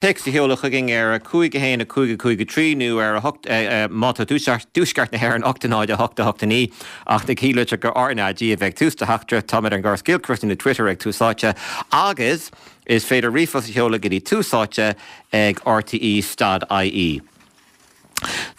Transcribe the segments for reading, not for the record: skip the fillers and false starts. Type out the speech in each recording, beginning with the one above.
Téacs a sheoladh chugainn ar 5 1 5 5 3 nó ar 8, má tá tú i dtuaisceart na hÉireann, 8 0 8 8 9. Ach na cinnlitreacha RnaG a bheidh ag tús do theachtaireacht. Táimid ar an gCorrscéal nó Twitter ag Tús Áite agus is féidir ríomhphost a sheoladh go dtí Tús Áite ag rte stad ie.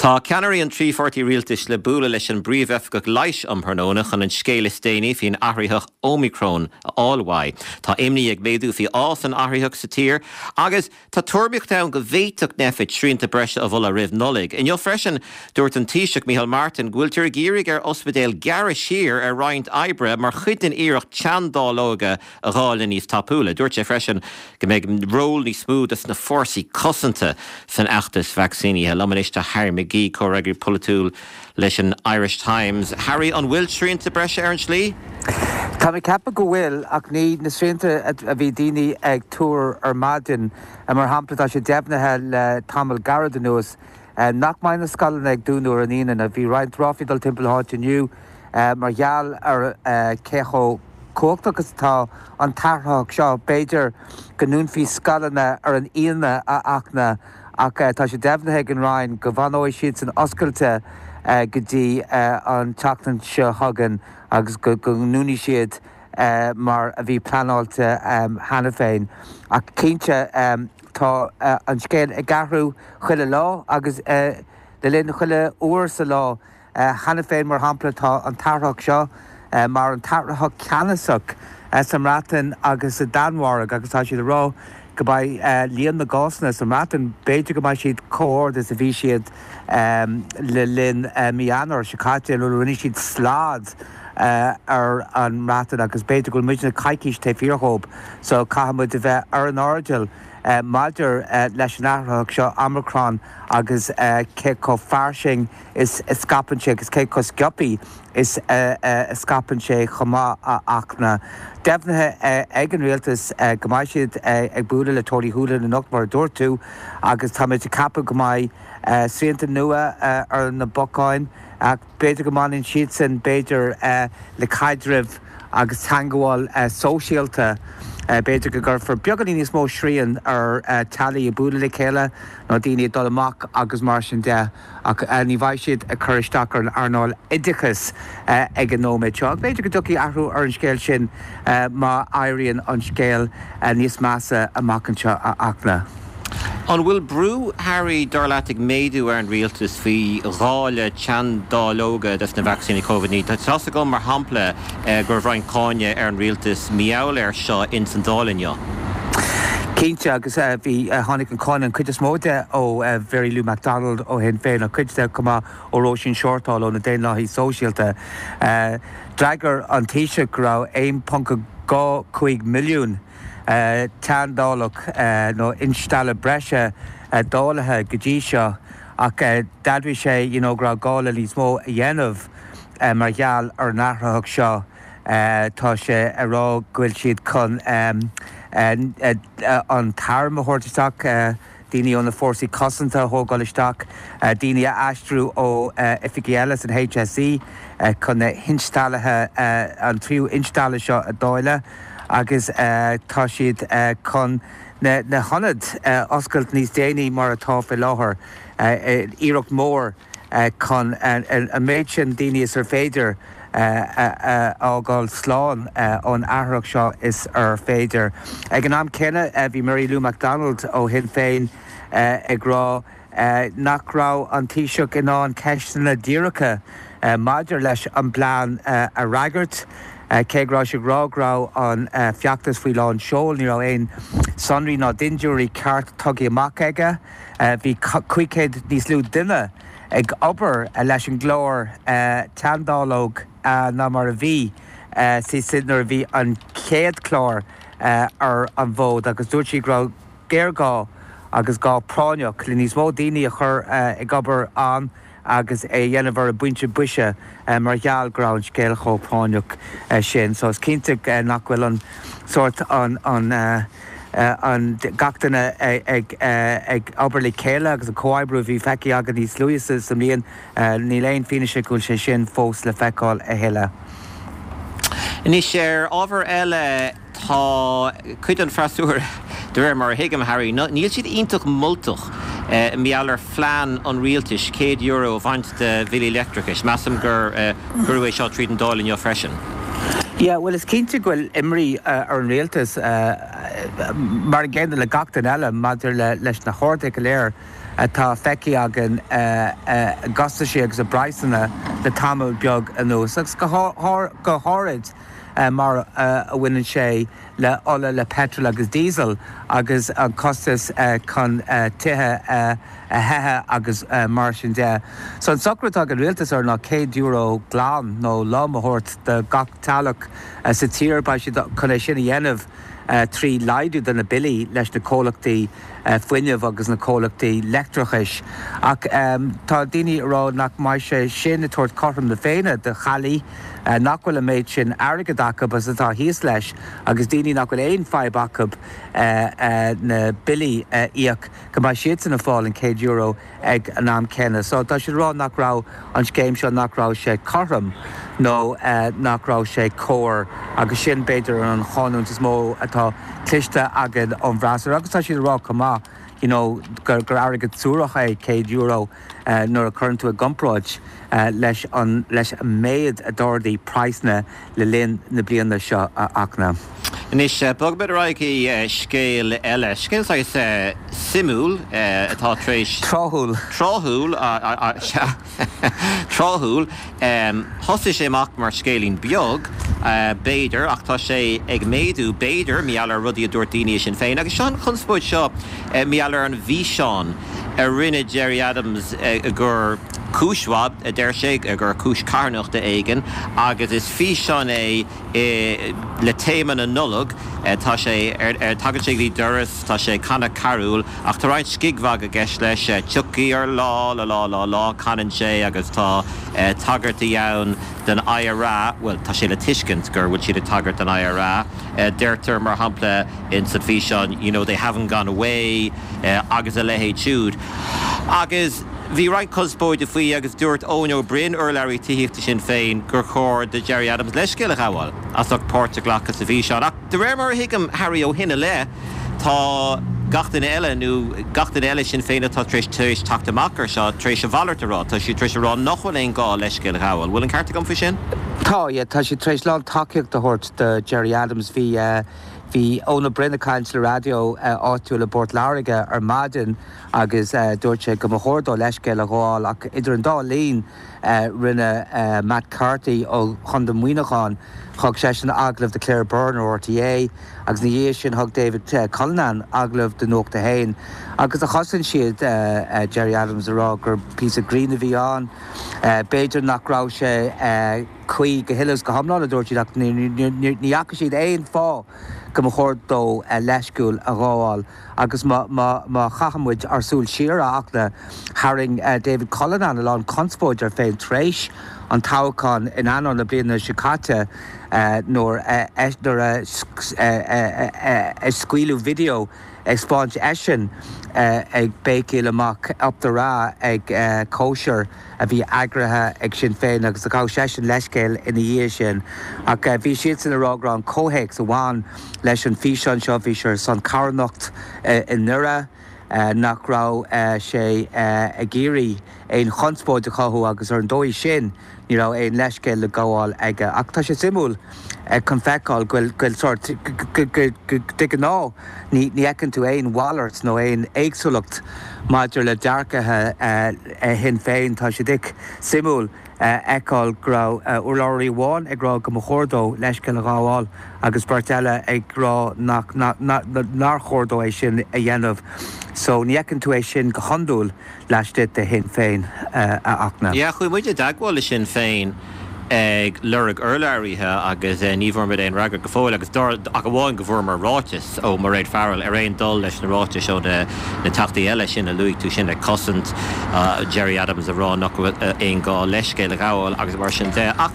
Tá ceannairí an trí pháirtí rialtais le bualadh leis an bPríomh-Oifigeach Leighis um thráthnóna chun an scéal is déanaí faoin athraitheach Ómicron a fháil uaidh. Tá imní ag méadú faoi fhás an athraitheach sa tír agus tá tuairimíocht ann go bhféadfadh Nphet srianta breise a mholadh roimh Nollaig. Inniu freisin, dúirt an Taoiseach Micheál Martin go bhfuiltear ag iarraidh ar ospidéil gearradh siar ar roinnt oibre mar chuid den iarracht teanndáileoga a dháileadh níos tapúla. Dúirt sé freisin go mbeidh ról níos mó dos na fórsaí cosanta san fheachtas vacsaínithe. Liom anois tá Harry McGee, comhfhreagraí polaitiúil leis an Irish Times. Harry, an bhfuil srianta breise ar an slí? Tá mé ag ceapadh go bhfuil, ach ní na srianta a bhí daoine ag tuar ar maidin. Mar shampla, tá sé deimhnithe le tamall gairid anuas nach mbeidh na scoileanna ag dúnadh ar an Aoine. Bhí roinnt ráflaí ag dul timpeall na háite inniu mar gheall ar cé chomh cumhachtach is atá an t-athraitheach seo. B'fhéidir go ndúnfaí scoileanna ar an Aoine, a Fhachtna, ach tá sé deimhnithe ag an Roinn go bhfanóidh siadsan oscailte go dtí an tseachtain seo chugainn agus go ndúnfaidh siad mar a bhí pleanáilte cheana féin. Ach cinnte, tá an scéal ag athrú chuile lá agus le linn chuile uair sa lá. Cheana féin, mar shampla, tá an t-athraitheach seo mar an t-athraitheach ceannasach sa mBreatain agus sa Danmhairg agus tá siad ag rá go mbeidh líon na gcásanna sa mBreatain, b'fhéidir go mbeidh siad chomh hard is a bhí siad le linn mí Eanáir seo caite nuair a rinne siad slad ar an mBreatain agus b'fhéidir go bhfuil muidne coicís taobh thiar dhóibh so caithfidh muid a bheith ar an airdeall maidir leis an athraitheach seo, Omicron, agus cé chomh fairsing is a scaipeann sé agus cé chomh sciobtha is a scaipeann sé chomh maith, a Fhachtna. Deimhnithe ag an rialtas go mbeidh siad ag bualadh le Tony Holohan anocht, mar a dúirt tú, agus táimid ag ceapadh go mbeidh srianta nua ar na bacáin ach b'fhéidir go mbaineann siadsan, b'fhéidir, le caidreamh agus teangmháil sóisialta. B'fhéidir go gcuirfear beagáinín níos mó srian ar teaghlaigh ag bualadh le chéile nó daoine ag dul amach agus mar sin de. Ach ní bheidh siad ag cur isteach ar an earnáil oideachais ag an nóiméad seo. Ach b'fhéidir go dtiocfaidh athrú ar an scéal sin má éiríonn an scéal níos measa amach anseo, a Fhachtna. An bhfuil brú, Harry, dar leat, ag méadú ar an rialtas faoi dháileadh teanndáileoga dos na vacsaíní Covid-19? Tá a fhios agam, mar shampla, go raibh roinnt cáineadh ar an rialtas mar gheall air seo ins an Dáil inniu. Cinnte, agus bhí, tháinig an cáineadh, an chuid is mó de, ó Mhary Lou McDonald ó Shinn Féin, ach cuid de chomh maith ó Róisín Shortall ó na Daonlathaithe Sóisialta. D'fhreagair an Taoiseach go raibh 1.25 milliún teanndáileog nó instealladh breise dáilithe go dtí seo ach d'admhaigh sé you know go raibh gá le níos mó a dhéanamh mar gheall ar an athraitheach seo. Tá sé ag rá go bhfuil siad chun an t-arm a thabhairt isteach, daoine ó na fórsaí cosanta a thógáil isteach, daoine a aistriú ó oifigí eile san HSE chun na hinsteallaithe, an tríú instealladh seo a dháileadh agus tá siad chun na hionaid a oscailt níos déanaí mar atá faoi láthair. Iarracht mhór. chun an méid sin daoine is ar féidir a fhágáil slán ón athraitheach seo is ar féidir. Ag an am céanna, bhí Mary Lou McDonald ó Shinn Féin ag rá nach raibh an Taoiseach in ann ceisteanna díreacha maidir leis an bplean a fhreagairt. Cé go raibh sé ag rá go raibh an feachtas faoi lán seoil, ní raibh aon sonraí ná dintiúirí ceart tugtha amach aige. Bhí 500 níos lú duine ag obair leis an gclár teanndáileog ná mar a bhí nuair a bhí an chéad chlár ar an bhfód agus dúirt sí go raibh géarghá agus gá práinneach le níos mó daoine a chur ag obair ann agus é a dhéanamh ar an bpointe boise mar gheall go raibh an scéal chomh práinneach sin. So is cinnte nach bhfuil an sórt an an an gach duine ag ag obair le chéile agus an comhoibriú a bhí feicthe againn níos luaithe sa mbliain, níl aon fianaise go bhfuil sé sin fós le feiceáil a thuilleadh. Anois ar ábhar eile, tá cuid den freasúra, de réir mar a thuigim, Harry, níl siad iontach moltach mar gheall ar phlean an rialtais €100 a bhaint de bhillí leictreachais. Measaim gur cuireadh é seo tríd an Dáil inniu freisin. Yeah, bhuel is cinnte go bhfuil imní ar an rialtas, mar an gcéanna le gach duine eile, maidir leis na harduithe go léir atá feicthe againn i gcostaisí agus i bpraghsanna le tamall beag anuas, agus go háirid mar a bhaineann sé le ola, le peitreal agus díosal agus an costas chun tithe a théamh agus mar sin de. So an socrú atá ag an rialtas air ná €100 glan nó lom a thabhairt do gach teaghlach sa tír. Beidh siad chun é sin a dhéanamh trí laghdú do na billí leis na comhlachtaí fuinnimh agus na comhlachtaí leictreachais. Ach tá daoine ag rá nach mbeidh sé sin ag tabhairt cothrom na Féinne do theaghlaigh nach bhfuil an méid sin airgid acu agus atá thíos leis agus daoine nach bhfuil aon fadhb acu na billí a íoc, go mbeidh siadsan ag fáil an €100 ag an am céanna. So tá siad ag rá nach raibh an scéim seo, nach raibh sé cothrom nó nach raibh sé cóir agus sin b'fhéidir an cháineadh is mó atá cloiste againn ón bhfreasúra agus tá siad ag rá chomh maith you know gur airgead suarach é €100 nuair a chuireann tú i gcomparáid leis an leis an méid a d'ardaigh praghsanna le linn na bliana seo a Fhachtna. Anois, bogfaimid ar aghaidh chuig scéal eile, scéal saghas suimiúil atá tar éis. Tráthúil. Tráthúil, sea. Tráthúil. Thosaigh sé amach mar scéilín beag, b'fhéidir, ach tá sé ag méadú, b'fhéidir, mar gheall ar rudaí a dúirt daoine i Sinn Féin. Agus seo an chonspóid seo mar gheall ar an bhfíseán a rinne Gerry Adams gur cúis mhaith, a deir sé, gur cúis carthanachta éigin, agus is físeán é le téama na Nollag. Tá sé ar, tagann sé go dtí doras, tá sé ag canadh carúil, ach tá roinnt scigmhagaidh i gceist leis, tiocfaidh ár lá, lá lá lá lá, canann sé, agus tá tagairtí ann don IRA, bhuel, tá sé le tuiscint gur bhfuil siad ag tagairt don IRA. Deirtear, mar shampla, ins an bhfíseán, you know, they haven't gone away, agus a leithéid siúd. Agus bhí roinnt conspóide faoi agus dúirt Eoin Ó Broin, urlabhraí tithíochta Shinn Féin, gur chóir do Gerry Adams leithscéal a ghabháil as ucht páirt a ghlacadh sa bhfíseán. Ach de réir mar a thuigim, Harry, ó shin i leith, tá gach duine eile, nó gach duine eile i Sinn Féin atá tar éis tar éis teacht amach ar seo, tar éis a mhalairt a rá. Tá siad tar éis a rá nach bhfuil aon gá leithscéal a ghabháil. Bhfuil an ceart agam faoi sin? Tá, yeah. Tá siad tar éis lán tacaíocht a thabhairt do Gerry Adams. Bhí, Bhí Eoin Ó Broin ag caint le raidió áitiúil i bPort Láirge ar maidin agus dúirt sé go mba chóir dó leithscéal a ghabháil ach idir an dá linn rinne Matt Carthy ó Chontae Mhuineacháin, thug seisean agallamh do Claire Byrne ar RTÉ agus ina dhiaidh sin thug David Cullinane agallamh do Nuacht a hAon agus chosain siad Gerry Adams ag rá gur píosa grinn a bhí ann. B'fhéidir nach raibh sé. cuí go huile is go hiomlán, a dúirt siad, ach ní fhaca siad aon fáth go mba chóir dó leithscéal a ghabháil. Agus má chaitheann muid ár súil siar, a Fhachtna, tharraing David Cullinane a lán conspóid air féin tar éis an toghcháin in Eanáir na bliana seo caite nuair a scaoileadh video ag 'spáint eisean ag béicíl amach Up the Ra ag cóisir a bhí eagraithe ag Sinn Féin agus ghabh seisean leithscéal ina dhiaidh sin. Ach bhí siadsan ag rá go raibh an comhthéacs a bhain leis an bhfíseán seo, bhí sé ar son carthanacht i nDoire, nach raibh sé ag iarraidh aon chonspóid a chothú agus ar an dóigh sin ní raibh aon leithscéal le gabháil aige. Ach tá sé suimiúil chun feiceáil go bhfuil sórt, de ghnáth ní fheiceann tú aon mhalairt nó aon éagsúlacht maidir le dearcaithe Shinn Féin. Tá sé suimiúil a fheiceáil go raibh urlabhraí amháin ag rá go mba chóir dó leithscéal a ghabháil agus beirt eile ag rá nach nár chóir dó é sin a dhéanamh. So ní fheiceann tú é sin go hiondúil. laistigh de Shinn Féin, a Fhachtna. Yeah, chuaigh muid i dteagmháil le Sinn Féin ag lorg urlabhraithe agus ní bhfuair muid aon fhreagra go fóill agus ach amháin go bhfuaireamar ráiteas ó Mairéad Farrell ar aon dul leis na ráitis ó na teachtaí eile sin a luaigh tú sin ag cosaint Gerry Adams ag rá nach bhfuil aon gá leithscéal a ghabháil agus mar sin de. Ach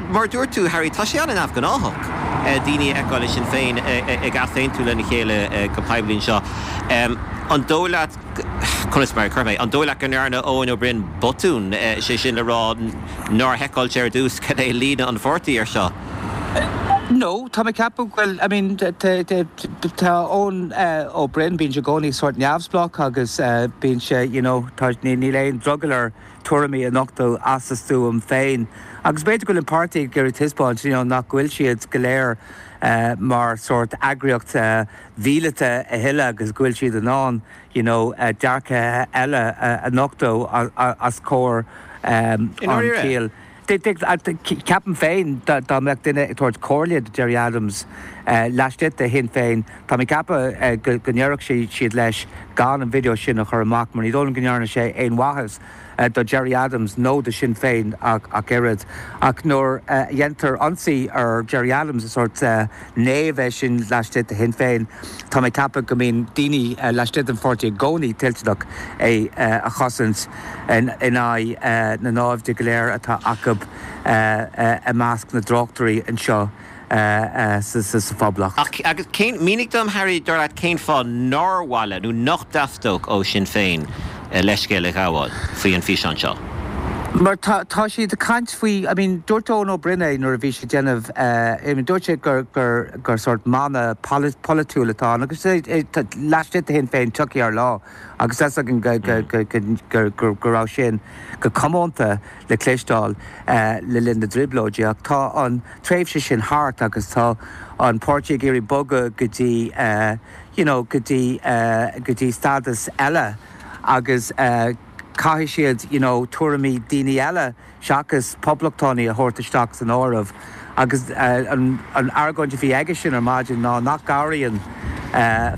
mar a dúirt tú Harry, tá sé an-neamhghnáthach. daoine a fheiceáil i Sinn Féin ag easaontú lena chéile go poiblí anseo. An dóigh leat, conas mar a chuirfidh mé, an dóigh leat go ndearna Eoin Ó Broin botún, sé sin le rá nár sheiceáil sé ar dtús cad é líne an pháirtí ar seo? No, tá mé ag ceapadh go bhfuil, I mean, tá Eoin Ó Broin, bíonn sé i gcónaí sórt neamhspleách agus bíonn sé, you know, tá, níl aon drogall air tuairimí a nochtadh as a stuaim féin. Agus b'fhéidir go bhfuil an páirtí ag iarraidh taispeáint, you know, nach bhfuil siad go léir mar sórt eagraíocht mhíleata a thuilleadh agus go bhfuil siad in ann, you know, dearcthaithe eile a nochtadh os comhair an tsaoil. Ceapaim féin dá mbeadh duine ag tabhairt comhairle do Gerry Adams laistigh de Shinn Féin, tá mé ag ceapadh go ndéarfadh siad leis gan an video sin a chur amach mar ní dóigh liom go ndearna sé aon mhaitheas do Gerry Adams nó do Shinn Féin ach oiread. Ach nuair a dhéantar ionsaí ar Gerry Adams, is sórt naomh é sin laistigh de Shinn Féin, tá mé ag ceapadh go mbíonn daoine laistigh den pháirtí i gcónaí toilteanach é a chosaint in aghaidh na naimhde go léir atá acu i measc na dtráchtairí anseo sa Phoblacht. Ach agus cén, mínigh dom, Harry, dar leat, cén fáth nár mhaith le, nó nach dteastódh ó Shinn Féin leithscéal a ghabháil faoi an físeán seo? Mar tá, tá siad ag caint faoi, I mean, dúirt Eoin Ó Broin é nuair a bhí sé ag déanamh, I mean, dúirt sé gur, gur, gur sórt mana polaitiúil atá ann agus laistigh de Shinn Féin tiocfaidh ár lá agus tá 'fhios againn go, go, go, go, go, go raibh sin go comónta le cloisteáil le linn na dTrioblóidí ach tá an tréimhse sin thart agus tá an páirtí ag iarraidh bogadh go dtí, you know, go dtí, go dtí stádas eile agus caithfidh siad, you know, tuairimí daoine eile seachas poblachtánaigh a thabhairt isteach san áireamh agus an argóint a bhí aigesean ar maidin ná nach gcabhraíonn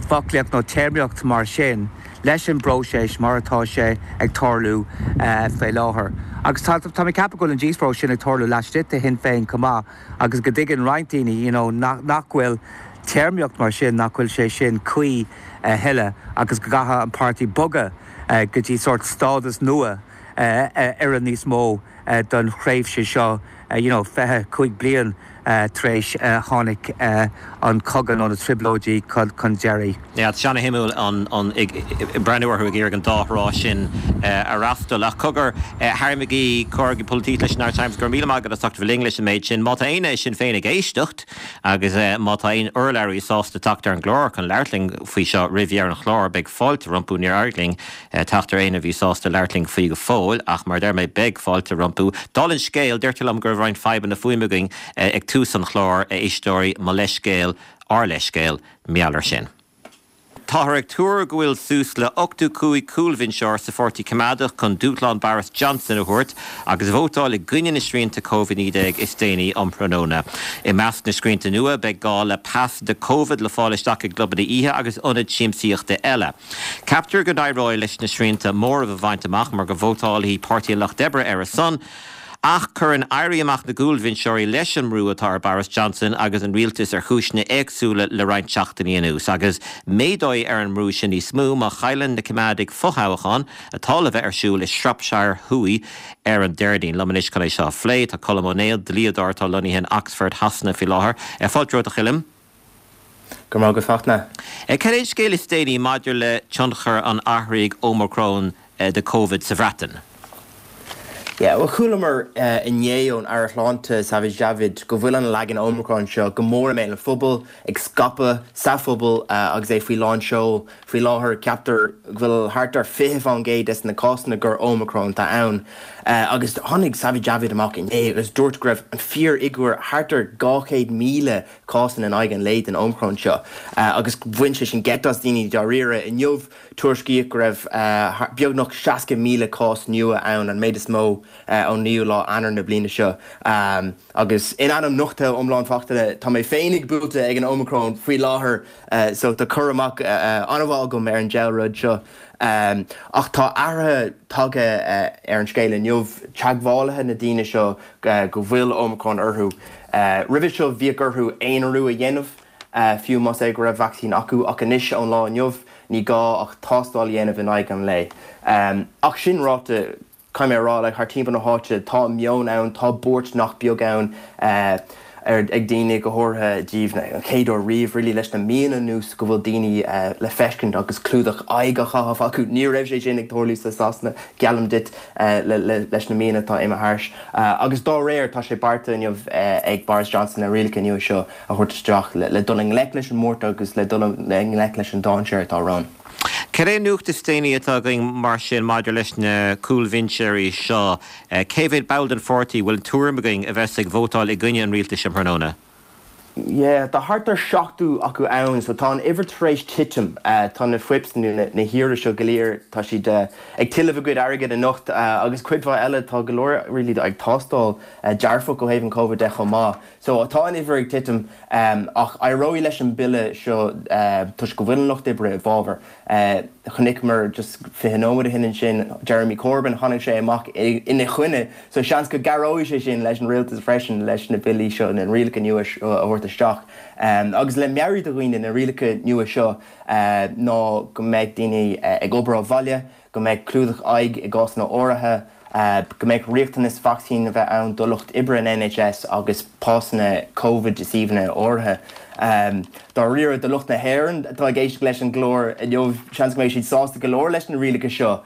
foclaíocht nó téarmaíocht mar sin leis an bpróiseas mar atá sé ag tarlú faoi láthair. Agus tá tá mé ag ceapadh go bhfuil an díospóireacht sin ag tarlú laistigh de Shinn Féin chomh maith agus go dtuigeann roinnt daoine you know nach nach bhfuil téarmaíocht mar sin, nach bhfuil sé sin cuí a thuilleadh agus go gcaithfidh an páirtí bogadh go dtí sórt stádas nua a oireann níos mó don thréimhse seo, you know, 25 bliain tar éis tháinig an cogadh nó na trioblóidí chun deiridh. Yeah, tá sé ana-shuimiúil an ag breathnú orthu ag iarraidh an dá thrá sin a fhreastal. Ach cogar, Harry McGee, Comhfhreagraí Polaitíochta leis an Irish Times, go raibh míle maith agat as ucht a bheith linn leis an méid sin. Má tá éinne i Sinn Féin ag éisteacht agus má tá aon urlabhraí sásta teacht ar an gclár chun labhairt linn faoi seo roimh dheireadh an chláir, beidh fáilte rompu. Níor éirigh linn teacht ar éinne a bhí sásta labhairt linn faoi go fóill, ach mar a deir mé, beidh fáilte rompu. Dála an scéil, deirtear liom go raibh roinnt fadhbanna fuaime againn ag tús an chláir, a éisteoirí, mo leithscéal, ár leithscéal, mar gheall air sin. Táthar ag tuar go bhfuil suas le 85 cúlbhinseoir sa Pháirtí Coimeádach chun dúshlán Boris Johnson a thabhairt agus vótáil i gcoinne na srianta Covid-19 is déanaí um thráthnóna. I measc na srianta nua, beidh gá le pas do Covid le fáil isteach i gclubanna oíche agus ionaid siamsaíochta eile. Ceaptar go n-éireoidh leis na srianta móramh a bhaint amach mar go vótálfaidh Páirtí an Lucht Oibre ar a son, ach cuireann éirí amach na gcúlbhinseoirí leis an mbrú atá ar Boris Johnson agus an rialtas ar chúiseanna éagsúla le roinnt seachtainí anuas. Agus méadóidh ar an mbrú sin níos mó má chailleann na Coimeádaigh fothoghchán atá le bheith ar siúl i Shropshire Thuaidh ar an Déardaoin. Liom anois chun é seo a phlé, tá Colm Ó Néill, dlíodóir atá lonnaithe in Oxford Shasana faoi láthair. Fáilte romhat a Choilm. Go raibh maith agat Fachtna. Cad é an scéal is déanaí maidir le tionchar an athraigh Omicron de Covid sa Bhreatain? Yeah, bhuel chualamar inné ón Aire Sláinte Sajid Javid go bhfuil an leagan Omicron seo go mór i mbéal an phobail, ag scaipeadh sa phobal agus é faoi lán seoil. Faoi láthair ceaptar go bhfuil thart ar 20% des na cásanna gur Omicron atá ann. Agus tháinig Sajid Javid amach inné agus dúirt go raibh an fíorfhigiúr thart ar 200,000 cásanna in aghaidh an lae den Omicron seo agus bhain sé sin geit as daoine dáiríre. Inniu, tuairiscíodh go raibh beagnach 60,000 cás nua ann, an méid is mó ón 9ú lá Eanáir na bliana seo. Agus in ainm nochtadh iomlán Fachtna, tá mé féinig buailte ag an Omicron faoi láthair so tá cur amach an-mhaith agam ar an diabhal rud seo. Ach tá athruithe tagtha ar an scéal inniu, teagmhálaithe na daoine seo go bhfuil Omicron orthu. Roimhe seo bhíodh orthu aonarú a dhéanamh, fiú más é go raibh vacsaín acu, ach anois ón lá inniu ní gá ach tástáil a dhéanamh in aghaidh an lae. Ach sin ráite, caithfidh mé a rá, like, thart timpeall na háite tá meon ann, tá buairt nach beag ann. Ag daoine, go háirithe díobh, an chéad uair riamh really leis na míonna anuas go bhfuil daoine le feiscint agus clúdach aghaidh á chaitheamh acu. Ní raibh sé sin ag tarlú sa Sasana, geallaim duit, leis na míonna atá imithe thairis. Agus dá réir, tá sé beartaithe inniu ag Boris Johnson na rialacha nua seo a thabhairt isteach le dul i ngleic leis an mbuairt agus le dul i ngleic leis an dainséar atá romhainn. Cad é an nuacht is déanaí atá againn mar sin maidir leis na cúlbhinseoirí seo? Cé mhéad ball den pháirtí, bhfuil tuairim againn, a bheas ag vótáil i gcoinne an rialtais um thráthnóna? Yeah, tá thart ar 70 acu ann, so tá an uimhir tar éis titim. Tá na whips nó na haoirí seo go léir, tá siad ag tuilleamh a gcuid airgid anocht agus cuid mhaith eile, tá go leor really ag tástáil dearfach ó thaobh an Covid de chomh maith. So tá an uimhir ag titim ach éireoidh leis an bille seo toisc go bhfuil an Lucht Oibre i bhfabhar. Chonaiceamar just 20 nóiméad ó shin ansin Jeremy Corbyn, tháinig sé amach ina choinne so seans go gcabhróidh sé sin leis an rialtas freisin leis na billí seo, na rialacha nua seo a thabhairt isteach. Agus le meabhrú do dhaoine, na rialacha nua seo ná go mbeidh daoine ag obair ó bhaile, go mbeidh clúdach aghaidh i gcásanna áirithe, go mbeidh riachtanas vacsaín a bheith ann do lucht oibre an NHS agus pasanna Covid i suíomhanna áirithe. Dáiríre, do lucht na hÉireann atá ag éisteacht leis an gclár inniu, seans go mbeidh siad sásta go leor leis na rialacha seo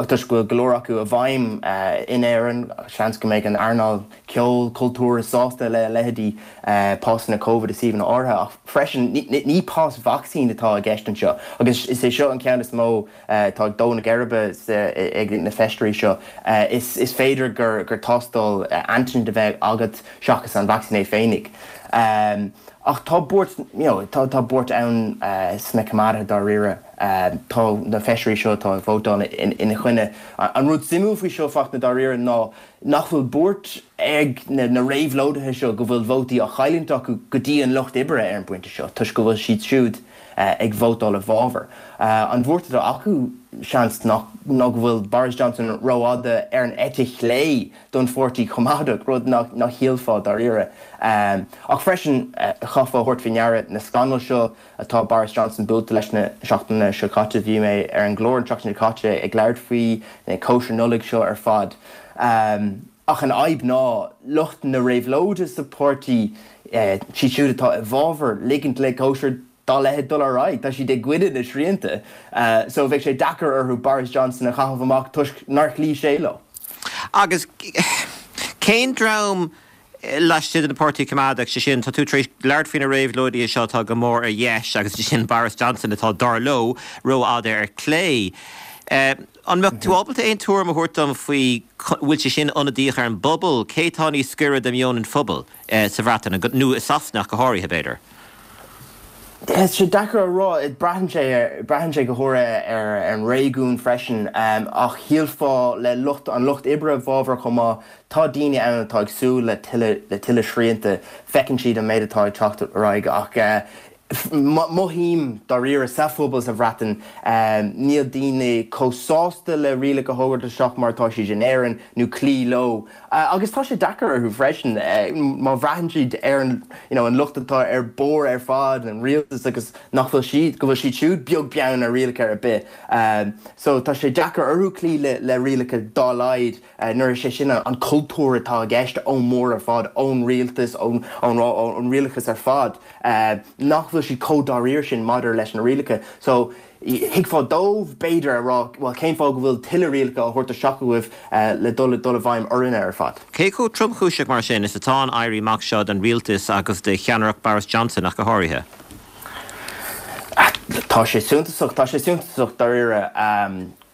toisc go bhfuil go leor acu i bhfeidhm in Éirinn. Seans go mbeidh an earnáil ceoil, cultúir sásta le leithéidí pasanna Covid i suíomhanna áirithe ach freisin ní pas vacsaín atá i gceist anseo agus is é seo an ceann is mó atá ag dó na geirbe ag na feisirí seo. Is féidir gur tástáil antigen a bheidh agat seachas an vacsaín é féinig. Ach tá buairt, you know, tá buairt ann sna coimeádaithe dáiríre. Tá na feisirí seo atá ag vótáil ina choinne. An rud suimiúil faoi seo, Fachtna, dáiríre ná nach bhfuil buairt ag na réabhlóidithe seo go bhfuil vótaí á chailliúint acu go dtí an Lucht Oibre ar an bpointe seo toisc go bhfuil siad siúd ag vótáil i bhfabhar. An bhuairt atá acu, seans, ná go bhfuil Boris Johnson rófhada ar an eite chlé don Pháirtí Coimeádach, rud nach shílfeá dáiríre. Ach freisin, chaithfeá a thabhairt faoi ndeara na scannail seo atá Boris Johnson buailte leis na seachtainí seo caite. Bhí mé ar an gclár an tseachtain seo caite ag labhairt faoi na cóisir Nollag seo ar fad. Ach an fhadhb ná lucht na réabhlóide sa pháirtí, siad siúd atá i bhfabhar ligint le cóisir dá leithéid dul ar aghaidh, tá siad i gcoinne na srianta. So bheadh sé deacair orthu Boris Johnson a chaitheamh amach toisc nár chloígh sé leo. Agus cén dream Laistigh den Pháirtí Coimeádach, sé sin, tá tú tar éis labhairt faoi na réabhlóidithe seo atá go mór ar dheis agus sé sin Boris Johnson atá, dar leo, rófhada ar clé. An mbeadh tú ábalta aon tuairim a thabhairt dom faoi bhfuil sé sin ionadaíoch ar an bpobal? Cé atá níos gaire do mheon an phobail sa Bhreatain, nó i Sasana ach go háirithe, b'fhéidir? Tá sé deacair a rá. Braitheann sé ar, braitheann sé go háirithe ar an réigiún freisin. Ach shílfeá le lucht, an lucht oibre i bhfabhar chomh maith, tá daoine ann atá ag súil le tuilleadh, le tuilleadh srianta. Feiceann siad an méid atá ag teacht ar aghaidh ach mothaím dáiríre sa phobal sa Bhreatain, níl daoine chomh sásta le rialacha a thabhairt isteach mar atá siad in Éirinn nó cloí leo. Agus tá sé deacair orthu freisin má bhraitheann siad ar an you know an lucht atá ar bord ar fad, an rialtas agus nach bhfuil siad, go bhfuil siad siúd beag beann ar rialacha ar bith. So tá sé deacair orthu cloí le le rialacha dá laghad nuair is é sin an cultúr atá i gceist ón mbord ar fad, ón rialtas, ón ón ón rialachas ar fad nach bhfuil siad chomh dáiríre sin maidir leis na rialacha. So Thuigfeá dóibh, b'fhéidir, a rá, bhuel, cén fáth go bhfuil tuilleadh rialacha á thabhairt isteach agaibh le dul dul i bhfeidhm orainne ar fad? Cé chomh tromchúiseach, mar sin, is atá an éirí amach seo don rialtas agus do cheannaireacht Boris Johnson ach go háirithe? Tá sé suntasach, tá sé suntasach dáiríre.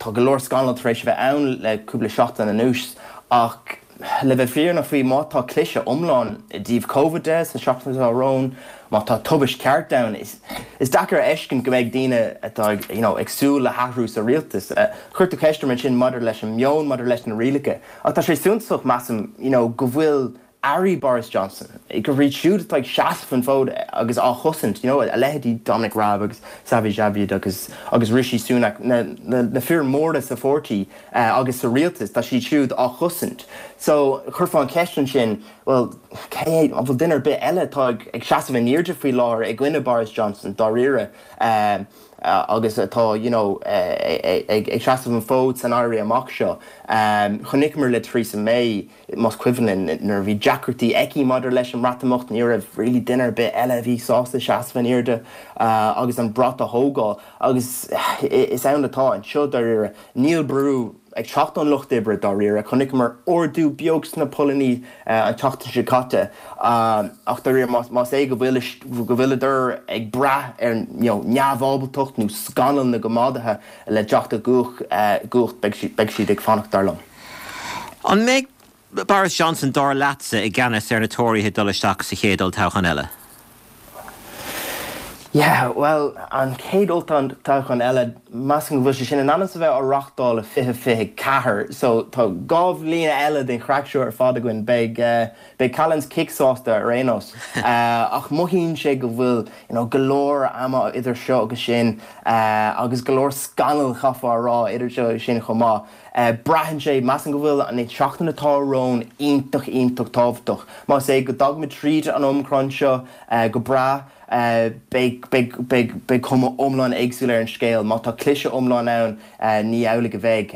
Tá go leor scannal tar éis a bheith ann le cúpla seachtain anuas ach, Le bheith fírinneach faoi, má tá cliseadh iomlán i dtaobh Covid de sa seachtain atá romhainn, má tá tubaist ceart ann, is deacair a fheiscint go mbeidh daoine atá ag, you know, ag súil le hathrú sa rialtas. Chuir tú ceist orm ansin maidir leis an meon, maidir leis na rialacha. Ach tá sé suntasach, measaim, you know, go bhfuil airí Boris Johnson, gurb iad siúd atá ag seasamh an fód agus á chosaint, you know, a leithéidí Dominic Raab agus Sajid Javid agus agus Rishi Sunak, na, na, na fir mhóra sa pháirtí, agus sa rialtas, tá siad siúd á chosaint. So, chuirfeá an cheist ansin, bhuel, cé hé, an bhfuil duine ar bith eile atá ag seasamh in airde faoi láthair i gcoinne Boris Johnson, dáiríre? agus atá you know ag seasamh an fód san éirí amach seo. Chonaiceamar le Theresa May, más cuimhin linn, nuair a bhí deacrachtaí aici maidir leis an mBreatimeacht, ní raibh really duine ar bith eile a bhí sásta seasamh in airde agus an brat a thógáil. Agus is ann atá anseo dáiríre. Níl brú ag teacht ón Lucht Oibre dáiríre. Chonaiceamar ardú beag sna polannaí an tseachtain seo caite ach dáiríre más é go bhfuil go bhfuileadar ag brath ar neamhábaltacht nó scannal na gcoimeádaithe le teacht i gcumhacht beidh siad ag fanacht dar liom. An mbeidh Boris Johnson, dar leatsa, i gceannas ar na Tóraithe ag dul isteach sa chéad olltoghchán eile? Yeah, bhuel, an chéad olltoghchán eile, measaim go bhfuil sé sin in ainm is a bheith á reachtáil i 2024, so tá 2 bhliain eile den chraic seo ar fad againn. Beidh, beidh Callan's Kick sásta ar aon nós. Ach mothaíonn sé go bhfuil, you know, go leor ama idir seo agus sin, agus go leor scannal, chaithfeá a rá, idir seo agus sin chomh maith. Braitheann sé, measaim go bhfuil an tseachtain atá romhainn iontach, iontach tábhachtach. Más é go dtagaimid tríd an Omicron seo go breá, beidh, beidh, beidh, beidh cuma iomlán éagsúil ar an scéal. Má tá cliseadh iomlán ann, ní amhlaidh a bheidh.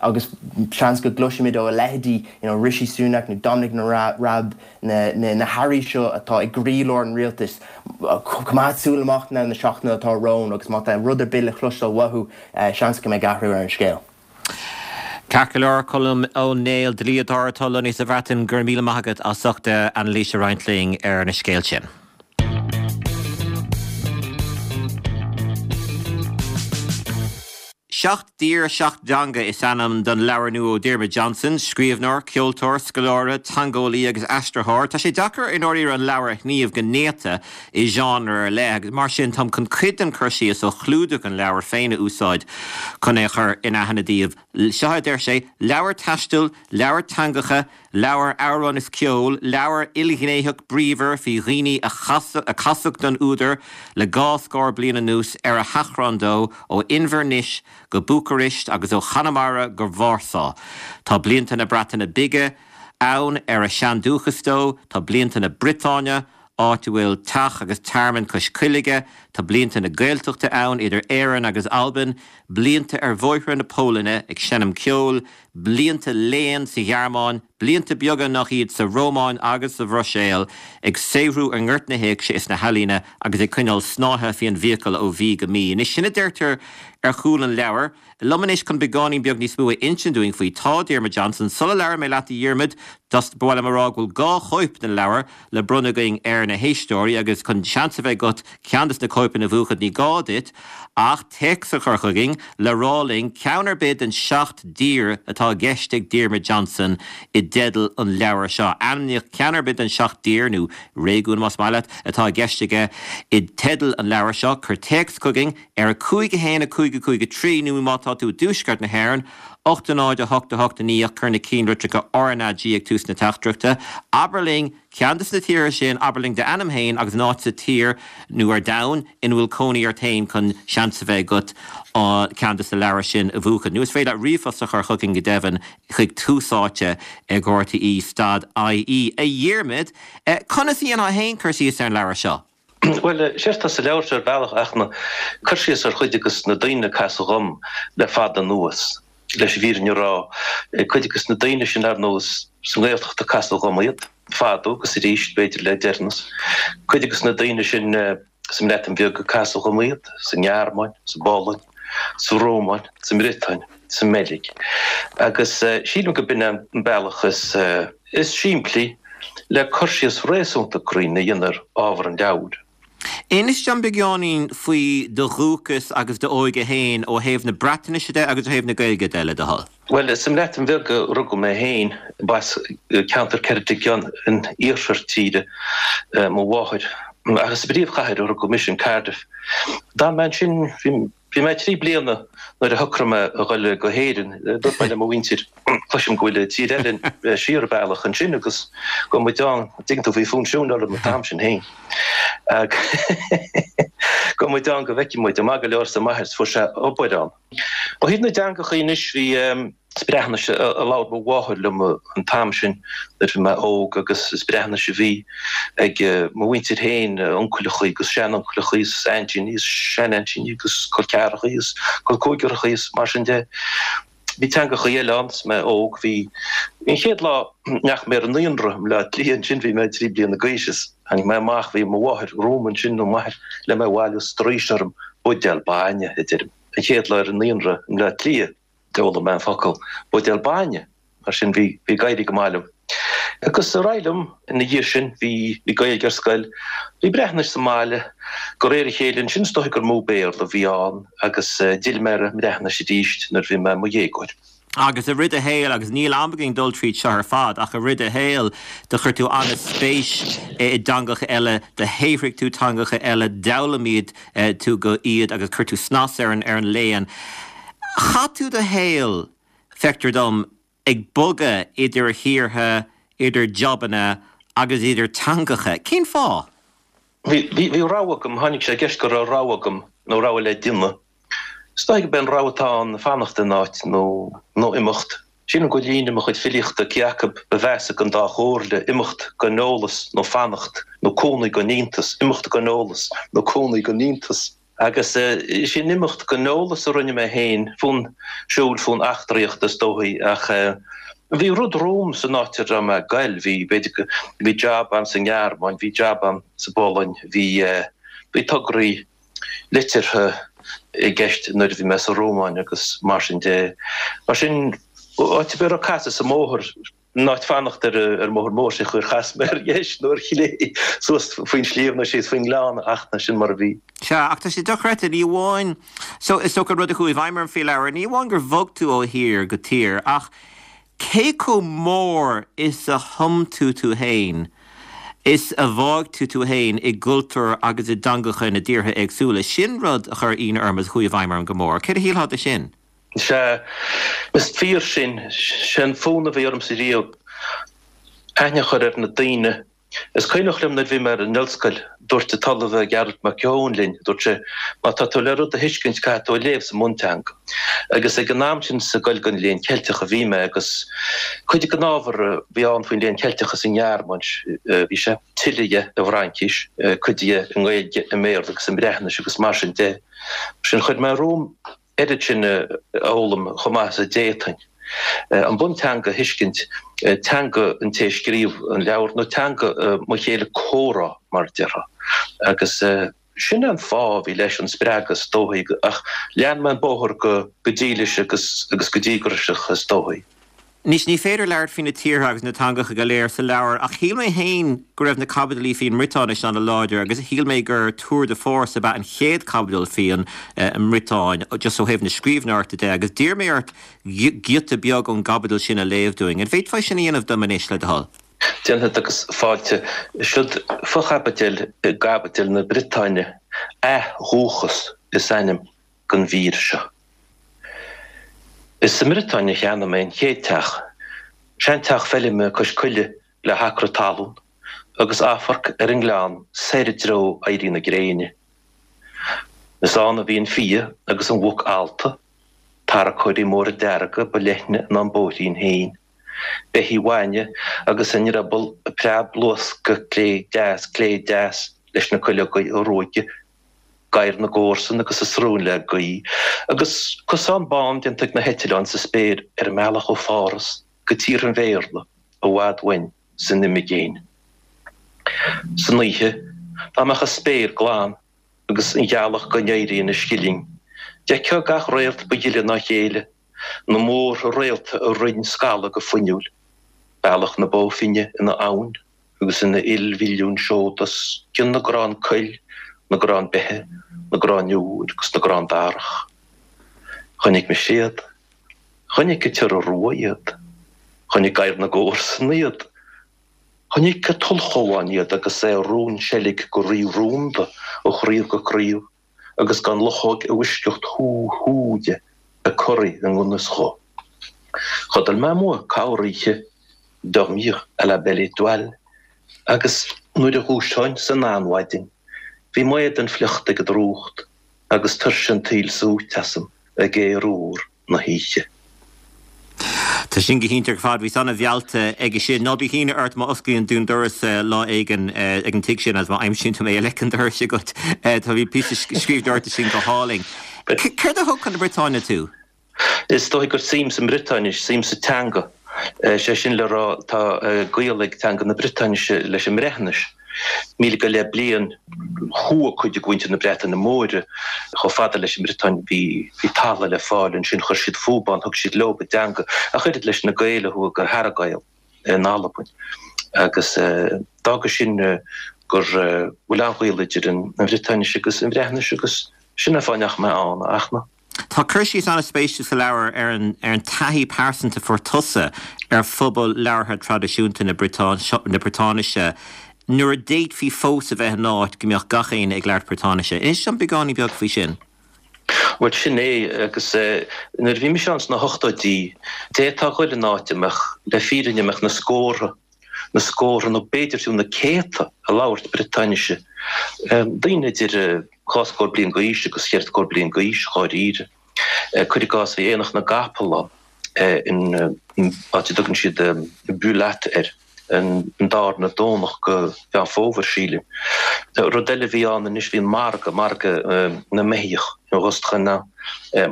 Agus seans go gcloisfimid ó a leithéidí, you know, Rishi Sunak nó Dominic Raab, na, na, na hairí seo atá i gcroílár an rialtais, coimeád súil amach na seachtaine atá romhainn agus má tá rud ar bith le cloisteáil uathu, Seans go mbeidh athrú ar an scéal. Ceart go leor, Colm Ó Néill, dlíodóir atá lonnaithe sa Bhreatain, go raibh míle maith agat as ucht anailís a roinnt linn ar na scéalta sin. Seacht dTír, Seacht dTeanga is ainm don leabhar nua ó Diarmuid Johnson, scríbhneoir, ceoltóir, scoláire, teangeolaí agus aistritheoir. Tá sé deacair i ndáiríre an leabhar a shníomh go néata i genre ar leith agus mar sin táim chun cuid den chur síos ó chlúdach an leabhair féin a úsáid chun é a chur in aithne daoibh. Seo a deir sé, Leabhar taistil, leabhar teangacha, leabhar amhrán is ceoil, leabhar ilghnéitheach bríomhar faoi dhaoine a casadh don údar le dhá scór bliain anuas ar a sheachrán dó ó Inbhir Nis go Búcairist agus ó Chonamara go Vársá. Tá blianta na Breataine Bige ann ar a seandúchas dó, tá blianta na Briotáine, áit a bhfuil teach agus tearmann cois coille aige, tá blianta na Gaeltachta ann idir Éirinn agus Albain, blianta ar bhóithre na Polainne ag seinm ceoil, blianta léinn sa Ghearmáin, blianta beaga nach iad sa Rómáin agus sa Bhruiséil, ag saothrú i ngort na héigse is na healaíne agus ag coinneáil snáithe faoi an bhfiacail ó mhí go mí. Anois, sin a deirtear ar chúl an leabhair. Liom anois chun beagáinín beag níos mó a insint dúinn faoi tá Diarmuid Johnson. Sula labhraíonn mé leat a Dhiarmuid, ba mhaith liom a rá go bhfuil 2 chóip den leabhar le bronnadh againn ar na héisteoirí agus chun seans a bheith agat ceann des na cóipeanna a bhuachan ní gá duit ach téacs a chur chugainn le rá linn ceann ar bith den 7 dtír atá i gceist ag Diarmuid Johnson i dteideal an leabhair seo. Ainmnigh ceann ar bith den 7 dtír, nó réigiún más maith leat, atá i gceist aige i dteideal an leabhair seo. Cuir téacs chugainn. Ar 5 1 5 5 3 nó má tá tú i dtuaisceart na hÉireann, 8 0 8 8 9 ach cuir na cinnlitreacha RnaG ag tús na teachtaireachta. Abair linn ceann de na tíortha sin, abair linn d'ainm féin agus an áit sa tír nó ar domhan ina bhfuil cónaí ort féin chun seans a bheith agat ceann de na leabhair sin a bhuachan. Nó is féidir leat ríomhphost a chur chugainn go deimhin chuig Tús Áite ag RTÉ stad IE. A Dhiarmaid, conas a dhéanfá féin cur síos ar an leabhar seo? Bhuel, séard atá sa leabhar seo ar bhealach ach ná cur síos ar chuid de na daoine a casadh dhom le fada anuas, leis an bhfírinne a rá. Cuid de na daoine sin, ar ndóigh, sa nGaeltacht a casadh dhom iad, fadó agus arís, b'fhéidir, le deireanas. Cuid de na daoine sin sa mBreatain Bheag a casadh dhom iad, sa nGearmáin, sa bPolainn, sa Rómáin, sa mBriotáin, sa mBeilg. Agus sílim go b'in an bealach is. is simplí le cur síos réasúnta cruinn a dhéanamh ar ábhar an leabhair. Inis dom beagáinín faoi do dhúchas agus d'óige féin ó thaobh na Breatnaise de agus ó thaobh na Gaeilge de, le do thoil. Bhuel, sa mBreatain Bheag a rugadh mé féin, b'as ceantar Ceredigion in iarthar tíre mo mháthair. Ach is sa bpríomhchathair a rugadh mise, in Cardiff. D'fhan mé ansin, bhí. Bhí mé 3 bliana nuair a shocraigh mé a dhul go hÉirinn. Dúirt mé le mo mhuintir, cloisim go bhfuil tír eile siar an bealach ansin agus gabhfaidh muid ann, dtuigeann tú, bhí fonn siúil orm an t-am sin féin. Gabhfaidh muid ann go bhfeicfidh muid. Maith go leor arsa m'athair, fuair sé obair ann. Ó thaobh na dteangachaí anois, bhí. Is Breatnais a labhair mo mháthair liom an t-am sin nuair a bhí mé óg agus is Breatnais a bhí ag mo mhuintir féin, uncaileachaí agus sean-uncaileachaí is aintíní is sean-aintíní agus col ceathrachaí is col cúigearachaí is mar sin de. Bhí teangachaí eile ann is mé óg. Bhí an chéad lá a ndeachaigh mé ar an naíonra i mBleá Cliath ansin bhí mé 3 bliana d'aois is tháinig mé amach, bhí mo mháthair romham ansin nó m'athair le mé a bhailiú straois orm, buidéal bainne a deirim. An chéad lá ar an naíonra i mBleá Cliath. D'fhoghlaim mé an focal buidéal bainne, mar sin bhí bhí ag éirí go maith liom. Agus ar aghaidh liom ina dhiaidh sin, bhí bhí Gaeilge ar scoil, bhí Breatnais sa mbaile, de réir a chéile ansin is dóigh gur mó Béarla a bhí ann agus d'fhill mé ar an mBreatnais arís nuair a bhí mé i mo dhéagóir. Agus i rith do shaoil, agus níl am againn dul tríd seo ar fad, ach i rith do shaoil do chuir tú an-spéis i dteangacha eile, do shaothraigh tú teangacha eile, d'fhoghlaim iad tú go iad agus chuir tú snas ar an ar an léann. Chaith tú do shaol, feictear dom, ag bogadh idir thíortha, idir jabanna agus idir teangacha. Cén fáth? Bhí, bhí, bhí rogha agam, tháinig sé i gceist go raibh rogha agam, nó rogha le déanamh. Is dóigh gurb é an rogha atá ann fanacht in áit nó, nó imeacht. Sílim go bhfuil líne i mo chuid filíochta, cé acu ba mheasa den dá chomhairle, imeacht gan eolas nó fanacht, nó cónaí gan iontas, imeacht gan eolas nó cónaí gan iontas. Agus sin imeacht gan eolas a rinne mé féin, fonn siúil, fonn eachtraíochta is dóichí, ach bhí rud romham san áit a raibh mé ag goil, bhí, b'fhéidir go, bhí jab ann sa nGearmáin, bhí jab ann sa bPolainn, bhí, bhí tograí liteartha i gceist nuair a bhí mé sa Rómáin agus mar sin de. Mar sin, áit ar bith a raibh casadh sa mbóthar, In áit fanacht ar an mbóthar mór sé chuir chas mé ar dheis nó ar chlé, suas faoin sliabh nó síos faoin ngleann ach ná sin mar a bhí. Sea, ach tá sé dochreidte, ní amháin, so, is dócha an rud a chuaigh i bhfeidhm orm faoi leabhar, ní amháin gur bhog tú ó thír go tír, ach cé chomh mór is a thum tú tú fhéin, is a bháigh tú tú fhéin i gcultúr agus i dteangacha na dtíortha éagsúla. Sin rud a chuir ionadh orm agus a chuaigh i bhfeidhm orm go mór. Céard a shílfeá de sin? Sea, is fíor sin. Sé an fonn a bhí ormsa riamh aithne a chur ar na daoine. Is cuimhneach liom nuair a bhí mé ar an ollscoil, dúirt an tOllamh Gearóid Mac Eoin linn, dúirt sé, má tá tú le rud a thuiscint caithfidh tú a léamh sa mbunteanga. Agus ag an am sin sa gCoill don Léann Ceilteach a bhí mé agus cuid den ábhar a bhí ann faoin Léann Ceilteach sa nGearmáin, bhí sé tuilleadh dhe i bhFraincís, cuid dhe i nGaeilge, i mBéarla agus i mBreatnais agus mar sin de. Sin chuir mé romham oiread sin a fhoghlaim chomh maith is a d'fhéadfainn. An bunteanga a thuiscint, teanga an té a scríobh an leabhar, nó teanga mo chéile comhrá, mar a déarfá. Agus sin é an fáth a bhí leis an spreagadh is dóichí, ach lean mé an bóthar go dílis agus go díograiseach is dóichí. Anois, ní féidir labhairt faoi na tíortha agus na teangacha go léir sa leabhar, ach shíl mé féin go raibh na caibidilí faoin mBriotáinis an-láidir agus shíl mé gur tour de force ab ea an chéad chaibidil faoin mBriotáin, just ó thaobh na scríbhneoireachta de, agus d'iarr mé ort giota beag ón gcaibidil sin a léamh dúinn. An bhféadfá sin a dhéanamh dom anois, le do thoil? Déanfad agus fáilte. Siod fochaibidil i gcaibidil na Briotáine, Athdhúchas is ainm don mhír seo. Is sa mBriotáin a cheannaigh mé an chéad teach, seanteach feilme cois coille le hacra talún agus amharc ar an ngleann soir i dtreo éirí na gréine. Is ann a bhí an fia agus an mhuc allta, tarracóirí móra dearga ba leithne ná an bóithrín féin, beithígh bhainne agus a ndrioball ag preab-luascadh clé deas clé deas leis na cuileogaí a ruaigeadh gadhair na gcomharsan agus a srón le gaoth, agus cosán bán déanta ag na heitleáin sa spéir ar an mbealach ó Pháras go tíortha an Bhéarla i bhfad uainn san imigéin. San oíche, dá mbeadh an spéir glan agus an ghealach gan éirí ina scilling, d'fheicfeá gach réalt ba ghile ná a chéile, na múrtha réalta ag roinn scalla go fuinniúil, bealach na Bó Finne ina abhainn. agus ina ilmhilliún seod os cionn na gcrann coill, na gcrann beithe, na gcrann iúir agus na gcrann darach. Chonaic mise iad. Chonaic an t-iora rua iad. Chonaic gadhar na gcomharsan iad. Chonaic an t-ulchabhán iad agus é ag rúnseilg go rí-rúnda ó chraobh go craobh. agus gan luchóg i bhfoisceacht hú hú de ag corraí i ngan fhios dhó. Chodail mé amuigh corroíche, dormir à la belle étoile, agus nuair a dhúiseoinn san anmhaidin, bhí m'éadan fliuchta ag an drúcht agus tuirse an tsaoil súite asam ag aer úr na hoíche. Tá sin go hiontach ar fad. Bhíos an-mheallta aige sin. Ná bíodh ionadh ort má osclaíonn tú an doras lá éigin ag an tigh sin agus má aimsíonn tú mé i leic an dorais agat. Tá bhí píosa scríbhneoireachta sin go hálainn. Céard a thug chun na Briotáine tú? Is dóigh gur suim sa mBriotáinis, suim sa teanga. Sé sin le rá, tá gaol ag teanga na Briotáinise leis an mBreatnais. 1000 go leith bliain chuaigh cuid de mhuintir na Breataine Móire chomh fada leis an mBriotáin, bhí talamh le fáil ansin, chuir siad fúthu ann, thug siad leo a dteanga, ach oiread leis na Gaeil a chuaigh go hEarra-Ghael in Albain. Agus d'fhága sin gur bhfuil an-ghaol idir an Bhriotáinis agus an Bhreatnais agus sin an fáth a ndeachaigh mé ann, a Fhachtna. Tá cur síos an-spéisiúil sa leabhar ar an ar an taithí pearsanta a fuair tusa ar phobal labhartha traidisiúnta na Briotáinise nuair a d'fhéadfaí fós a bheith in áit go mbeadh gach éinne ag labhairt Briotáinise. Inis dom beagáinín beag faoi sin. Bhuel, sin é, agus nuair a bhí mise ann sna hochtóidí, d'fhéadfá a ghoil in áit a mbeadh, le fírinne, a mbeadh na scórtha, na scórtha nó b'fhéidir fiú na céadta ag labhairt Briotáinise, daoine idir dhá scór bliain d'aois agus cheithre scór bliain d'aois, dháiríre. Cuir i gcás, bhí Aonach na gCapall ann in áit a dtugann siad Bullat air, an darna Domhnach de Mheán Fómhair, sílim. Rud eile a bhí ann anois, bhí an margadh, margadh na mbeithíoch, in Rostrennan,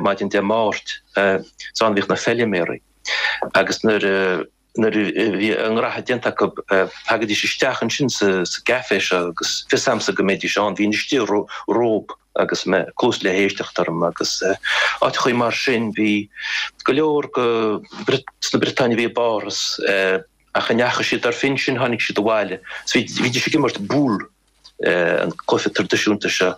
maidin Dé Máirt, is ann a bhíodh na feiliméaraí agus nuair a Nuair a bhí a ngraithe déanta acu, thagaidís isteach ansin sa gcaifé seo agus fios a'msa go mbeidís ann. Bhínn istigh rompu agus mé cluas le héisteacht orm agus áiteachaí mar sin. Bhí go leor de sna Briotáin a bhí i bPáras ach a ndeachaigh siad ar phinsin, tháinig siad abhaile. Bhídís ag imirt boules. an cluiche traidisiúnta seo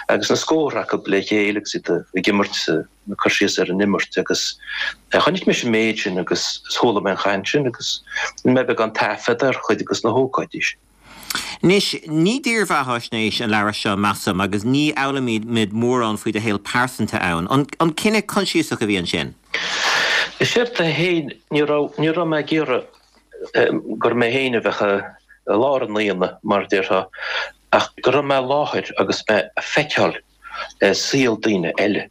agus na scórtha acu le chéile agus iad ag imirt, ag cur síos ar an imirt agus chonaic mise an méid sin agus chuala mé an chaint sin agus rinne mé beagán taifead ar chuid de na hócáidí sin. Anois, ní dírbheathaisnéis an leabhar seo, measaim, agus ní fhoghlaimímid mórán faoi do shaol pearsanta ann. An cinneadh coinsiasach a bhí ansin? Is éard é féin, ní raibh, ní raibh mé ag iarraidh gur mé féin a bheadh i lár an aonaigh, mar a déarfá, ach go raibh mé i láthair agus mé ag feiceáil saol daoine eile.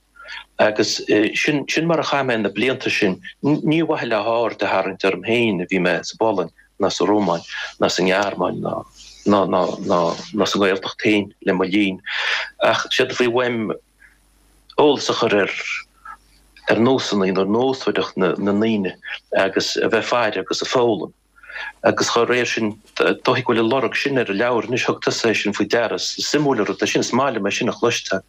Agus sin, sin mar a chaith mé na blianta sin. Ní ar mhaithe le haird a tharraingt orm féin a bhí mé sa bPolainn ná sa Rómáin ná sa nGearmáin ná, ná, ná, ná, ná sa nGaeltacht féin le mo linn, ach séard a bhí uaim eolas a chur ar ar nósanna nó ar nósmhaireacht na ndaoine agus a bheith ag faire agus ag foghlaim. Agus dá réir sin, dóigh go bhfuil an lorg sin ar an leabhar anois, thug tusa é sin faoi deara, is suimiúil an rud é sin, is maith liom é sin a chloisteáil.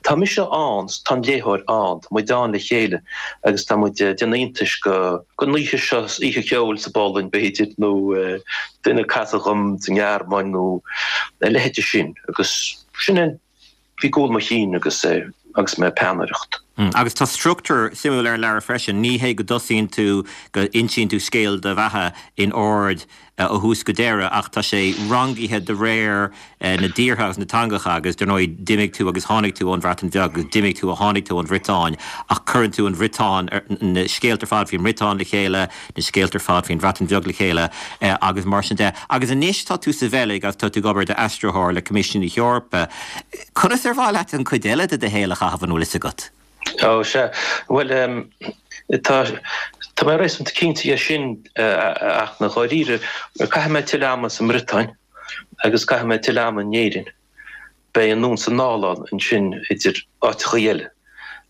Tá mise ann, tá an léitheoir ann, tá muid ann le chéile agus tá muid ag déanamh iontais go den oíche seo, oíche cheoil sa bPolainn b'fhéidir nó duine a casadh dhom sa nGearmáin nó a leithéide sin agus sin é Bhí i gcúl mo chinn agus agus mé ag peannaireacht. Agus tá struchtúr suimiúil ar an leabhar freisin. Ní hé go dtosaíonn tú, go insíonn tú scéal do bheatha in ord ó thús go deireadh ach tá sé rangaithe de réir na dtíortha agus na dteangacha agus dar ndóigh d'imigh tú agus tháinig tú ón Bhreatain Bheag agus d'imigh tú ó tháinig tú ón Bhriotáin ach cuireann tú an Bhriotáin, na scéalta ar fad faoin mBriotáin le chéile, na scéalta ar fad faoin Bhreatain Bheag le chéile agus mar sin de. Agus anois tá tú sa Bheilg agus tá tú ag obair i d'aistritheoir le Coimisiún na hEorpa. Conas ar mhaith leat an chuid eile de do shaol a chaitheamh, an bhfuil fhios agat? Ó, sea. Bhuel, tá, tá mé réasúnta cinnte dhe sin, ach i ndáiríre, caithfidh mé tuilleadh ama sa mBriotáin agus caithfidh mé tuilleadh ama in Éirinn. Beidh anonn 's anall ann ansin idir áiteachaí eile.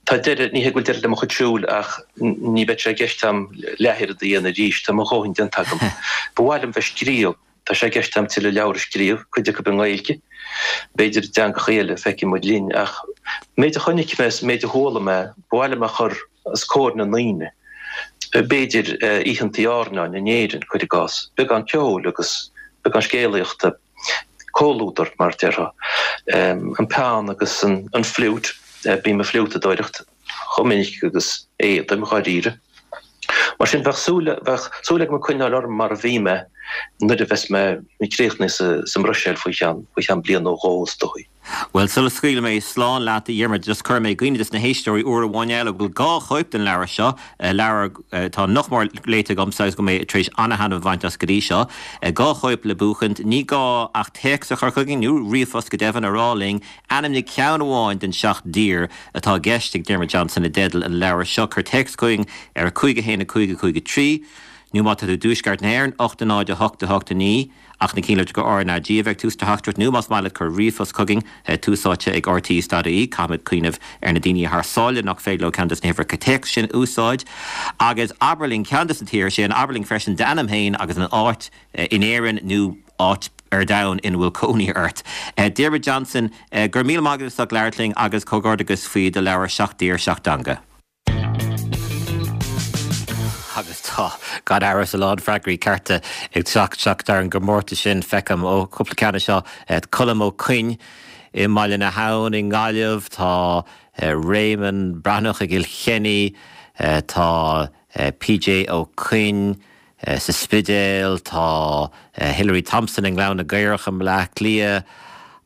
Tá deireadh, ní hé go bhfuil deireadh le mo chuid siúil ach ní bheidh sé i gceist a'm leathoiread a dhéanamh arís, tá mo dhóthain déanta agam. Ba mhaith liom bheith ag scríobh, tá sé i gceist a'm tuilleadh leabhar a scríobh, cuid acu i nGaeilge, b'fhéidir i dteangachaí eile, feicfidh muid linn, ach an méid a chonaic mé is an méid a chuala mé, ba mhaith liom a chur os comhair na ndaoine. B'fhéidir oícheantaí airneáin in Éirinn, cuir i gcás, beagán ceoil agus beagán scéalaíochta. comhluadar, mar a déarfá. An peann agus an fliúit, bím ag fliútadóireacht chomh minic agus a fhéadaim, dháiríre. Mar sin, bheadh súil, bheadh súil agam coinneáil orm mar a bhí mé. nuair a bheas mé críochnaithe sa mBruiséil faoi cheann, faoi cheann bliain nó dhó is dóigh. Bhuel, sula scaoilfidh mé slán leat, a Dhiarmuid, just cuirfidh mé i gcuimhne dos na héisteoirí uair amháin eile go bhfuil 2 chóip den leabhar seo, leabhar atá nach mór léite agamsa agus go bhfuil mé tar éis ana-thaitneamh a bhaint as go dtí seo. 2 chóip le buachaint. Ní gá ach téacs a chur chugainn, nó ríomhphost go deimhin, a rá linn ainmnigh ceann amháin den seacht dtír atá i gceist ag Diarmuid Johnson i dteideal an leabhair seo. Cuir téacs chugainn ar 5 1 5 5 3, nó má tá tú i dTuaisceart na hÉireann, 8 0 8 8 9. Ach na cinnlitreacha RnaG a bheidh tús do theachtaireacht nó más maith leat cuir ríomhphost chugainn, Tús Áite ag rte.ie. Caithfimid cuimhneamh ar na daoine thar sáile nach féidir leo ceann des na huimhreacha téacs sin a úsáid. Agus abair linn ceann des na tíortha sin, abair linn freisin d'ainm féin agus an áit in Éirinn nó áit ar domhan ina bhfuil cónaí ort. Diarmuid Johnson, go raibh míle maith agat as ucht labhairt linn agus comhghairdeachas faoi do leabhar Seacht dTír, Seacht dTeanga. Agus tá, gan amhras, a lán freagraí cearta ag teacht isteach ar an gcomórtas sin. Feicim, ó, cúpla ceann anseo, Colm Ó Coinn i mBaile na hAbhann i nGaillimh, tá Réamonn Breathnach i gCill Chainnigh, tá PJ Ó Coinn sa Spidéal, tá Hilary Thompson i nGleann na gCaorach i mBaile Átha Cliath